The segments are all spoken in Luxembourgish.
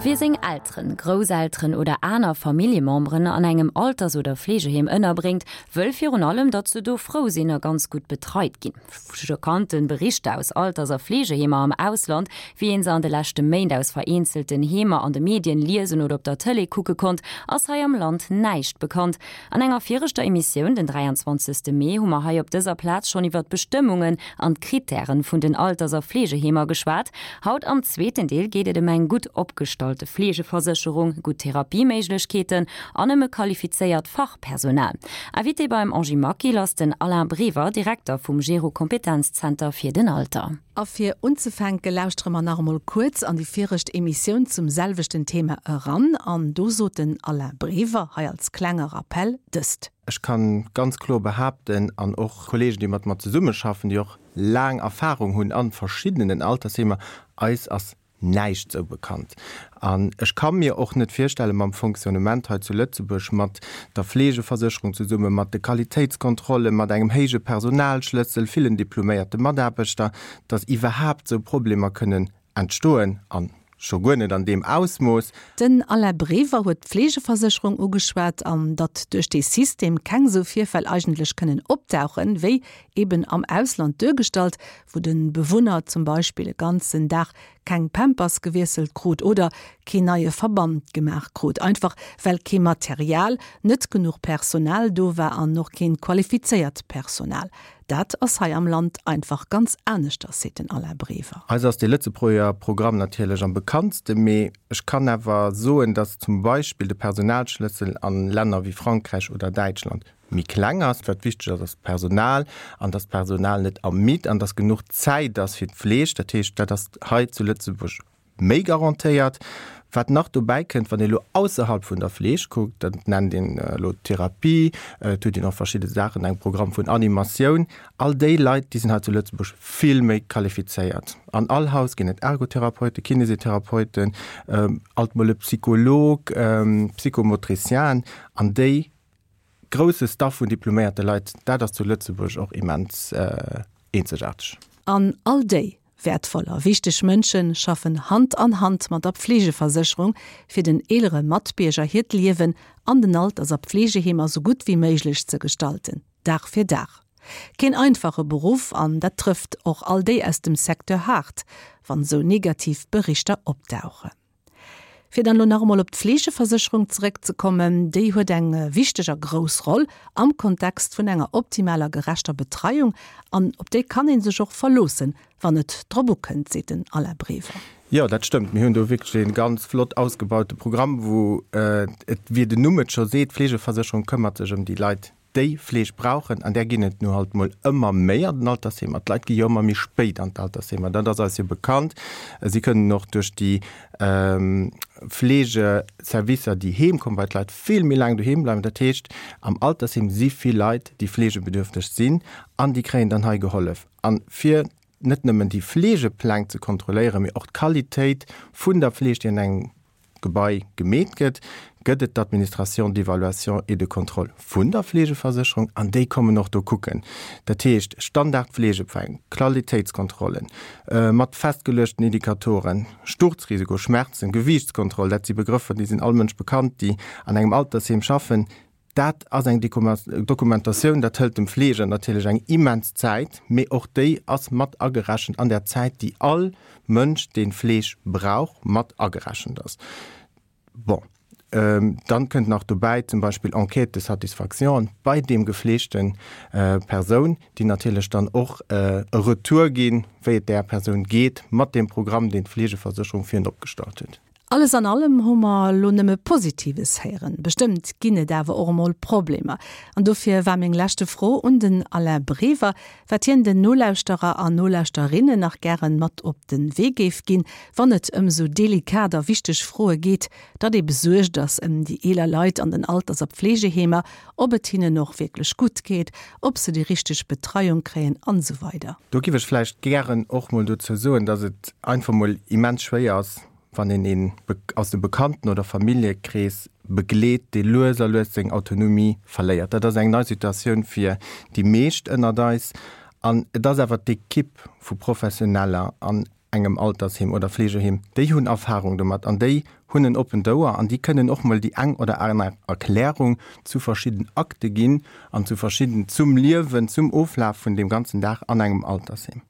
Wie seng Elteren, Grousselteren oder aner Familljememberen an engem Alters oder Fleegeheem ënnerbréngt, wëll virun allem, datt se do frou sinn a ganz gutt betreit ginn. Schockanten Berichter aus Alters a Fleegeheemer am Ausland, wéi een se an de leschte Méint aus vereenzelten Heemer an de Medien liesen oder op der Tëlee kucke konnt, ass hei am Land näischt bekannt. An enger viregter Emissioun, den 23. Mee, hu mer hei op dëser Plaz schonn iwwer d'Bestëmmungen an d'Krittären vun den Alters a Fleegeheemer geschwat. Haut am zweeten Deel geet et ëm eng gutt opgestallte Fleegeversécherung, gutt Therapieméiglechkeeten an ëm e qualifizéiert Fachpersonal. Invité beim Angie Maquil ass den Alain Brever, Direkter vum Gero-Kompetenzzenter fir den Alter. A fir unzefänke lauschtere mer nach emol kuerz an déi viregt Emissioun zum selwechten Thema eran. An do sot den Alain Brever, hei als klenge Rappell, dëst. Ech kann ganz kloer behaapten, an och Kollegen, déi mat mer zesummeschaffen, déi och laang Erfahrung hunn a verschiddenen Altersheemer, eis ass näischt sou bekannt. An ech ka mir och net virstellen, mam Fonctionnement hei zu Lëtzebuerg, mat der Fleegeversécherung zesummen, mat de Qualitéitskontrollen, mat engem héije Personalschlëssel, villen diploméierte Mataarbechter, datt iwwerhaapt sou Problemer kënnen entstoen, a scho guer net an deem Ausmooss. Den Alain Brever huet d'Fleegeversécherung ugeschwat an datt duerch dee System keng sou Virfäll eigentlech kënnen opdauchen, wéi eben am Ausland duergestallt, wou de Bewunner zum Beispill e ganzen Dag keng Pampers gewiesselt krut oder keen neie Verband gemaach krut, einfach well kee Material, net genuch Personal do war an och keen qualifizéiert Personal. Dat ass hei am Land einfach ganz aneschters, seet den Alain Brever. Eis ass dee Lëtzebuerger Programm natierlech am bekanntste, mee ech kann awer soen, datt zum Beispill de Personalschlëssel a Länner wéi Frankräich oder Däitschland méi kleng ass. Wat wichteg ass, ass d'Personal an dass d'Personal net ermidd an dass genuch Zäit ass fir d'Fleeg. Dat heescht, dat ass hei zu Lëtzebuerg méi garantéiert. Wat nach dobäi kënnt, wann ee elo ausserhalb vun der Fleeg kuckt, dat nennt een elo Therapie, et huet een och verschidde Saachen, eng Programm vun Animatioun, all déi Leit, déi sinn hei zu Lëtzebuerg vill méi qualifizéiert. An all Haus ginn et Ergotherapeuten, Kinesitherapeuten, alt mol e Psycholog, Psychomotricienen an déi Grousse Staff vun diploméierte Leit, dat ass zu Lëtzebuerg och immens eenzegaarteg. An all déi wäertvoll a wichteg Mënsche schaffen Hand an Hand mat der Pflegeversécherung, fir den eelere Matbierger hiert Liewen an den Alters a Pflegeheemer sou gutt wéi méiglech ze gestalten, Dag fir Dag. Keen einfache Beruff, an dat trëfft och all déi aus dem Secteur haart, wann sou negativ Berichter opdauchen. Fir dann elo nach emol op d'Fleegeversécherung zeréckzekommen, déi huet eng wichteg a grouss Roll am Kontext vun enger optimaler gerechter Betreiung an op déi kann ee sech och verloossen, wann et drop ukënnt, seet den Alain Brever. Jo, dat stëmmt. Mir hunn do wierklech ee ganz flott ausgebaute Programm, wou et, wéi den Numm et scho seet, d'Fleegeversécherung këmmert sech ëm déi Leit, déi Fleeg brauchen, an där ginn et nu halt mol ëmmer méi an den Altersheemer. D'Leit gi jo ëmmer méi spéit an d'Altersheemer, dat ass eis jo bekannt. Si kënnen och duerch déi Fleegeservicer, déi heem kommen, bei d'Leit vill méi laang doheem bleiwen. Dat heescht, am Altersheem si vill Leit, déi fleegebedürfteg sinn, an déi kréien dann hei gehollef. A fir net nëmmen déi Fleegepläng ze kontrolléieren, mee och d'Qualitéit vun der Fleeg, déi an engem Gebai gemeet gëtt, gëtt et d'Administration d'évaluation et de contrôle vun der Fleegeversécherung an déi kommen och do kucken. Dat heescht, Standardfleegepläng, Qualitéitskontrollen mat festgeluechten Indikatoren, Sturzrisiko, Schmerzen, Gewiichtskontroll, dat si Begrëffer, déi sinn all Mënsch bekannt, déi an engem Altersheem schaffen. Dat ass eng Dokumentatioun, dat hëlt dem Fleeger natierlech eng immens Zäit, mee och déi ass mat agerechent an der Zäit, déi all Mënsch, dee Fleeg brauch, mat agerechent ass. Bon, dann kënnt nach dobäi zum Beispill Enquête de satisfaction bei deem gefleegte Persoun, déi natierlech dann och e Retour ginn, wéi et där Persoun geet mat deem Programm, deen d'Fleegeversécherung fir en opgestallt huet. Alles an allem hu mer elo nëmme Positives héieren. Bestëmmt ginn et awer och emol Problemer. An dofir war meng leschte Fro un den Alain Brever, wat hien den Nolauschterer an Nolauschterinnen nach gären mat op de Wee géif ginn, wann et ëm esou delikat a wichteg Froe geet, datt ee besuergt ass ëm déi eeler Leit an den Alters a Pflegeheemer, ob et hinnen och wierklech gutt geet, ob se déi richteg Betreiung kréien an esou weider. Do giff ech vläicht gären och mol dozou soen, datt et einfach mol immens schwéier ass, wann een een aus dem Bekannten oder Familljekrees begleet, dee lues a lues seng Autonomie verléiert. Dat ass eng nei Situatioun fir déi meescht ënnert eis. An et ass awer d'Ekipp vu Professioneller an. engem Altersheem oder Fleegeheem, déi hunn Erfahrung domat an déi hunn en oppent Ouer an déi kënnen och mol déi eng oder aner Erklärung zu verschidden Akte ginn an zu verschidden, zum Liewen, zum Oflaf vun deem ganzen Dag an engem Altersheem.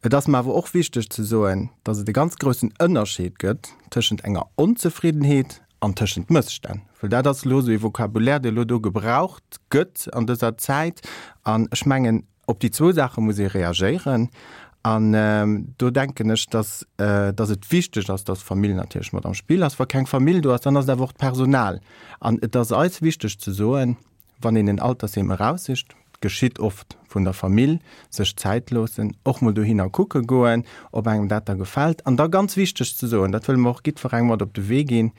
Et ass mer awer och wichteg ze soen, dass et e ganz groussen Ënnerscheed gëtt tëschent enger Onzefriddenheet an tëschent Mësstänn, well dat ass elo esou ee Vocabulaire, dee elo do gebraucht gëtt an dëser Zäit. An ech mengen, op déi zwou Saache muss ee reagéieren. An do denken ech, dass, dass et wichteg ass, dass d'Famill natierlech mat am Spill ass. Wa keng Famill do ass, dann ass et awer och d'Personal. An et ass eis wichteg ze soen, Wann een en Altersheem eraussicht, geschitt oft vun der Famill, sech Zäit loossen, och mol dohinner kucke goen, ob engem dat da gefält. An da ganz wichteg ze soen, dat wëlle mer och jiddwerengem mat op de Wee ginn,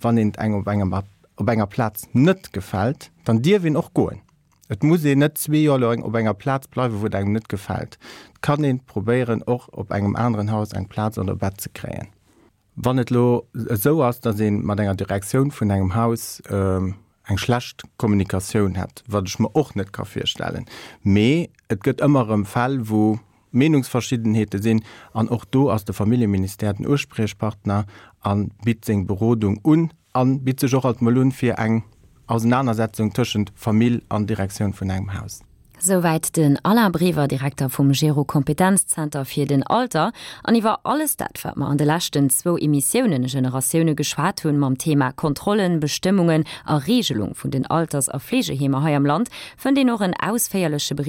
Wann een et engem op engem op enger Plaz net gefält, dann dierf een och goen. Et muss een net zwee Joer laang op enger Plaz bleiwen, wou et engem net gefält. Et kann een probéieren, och op engem aneren Haus eng Plaz an der Bett ze kréien. Wann et elo esou ass, datt ee mat enger Direktioun vun engem Haus eng schlecht Kommunikatioun hätt, wat ech mer och net ka virstellen, mee et gëtt ëmmer erëm Fäll, wou Meenungsverschiddenheete sinn, an och do ass de Familljeministère den Uspriechpartner a bitt seng Berodung un a bitt sech och alt mol un fir eng Ausenanersetzung tëschent Famill an Direktioun vun engem Haus. Souwäit den Alain Brever, Direkter vum Gero Kompetenzzenter fir den Alter. An iwwer alles dat, wat mer an de leschten zwou Emissiounen Generatioune geschwat hunn, mam Thema Kontrollen, Bestëmmungen a Regelung vun den Alters a Fleegeheemer hei am Land, fënnt een och en ausféierleche Bericht.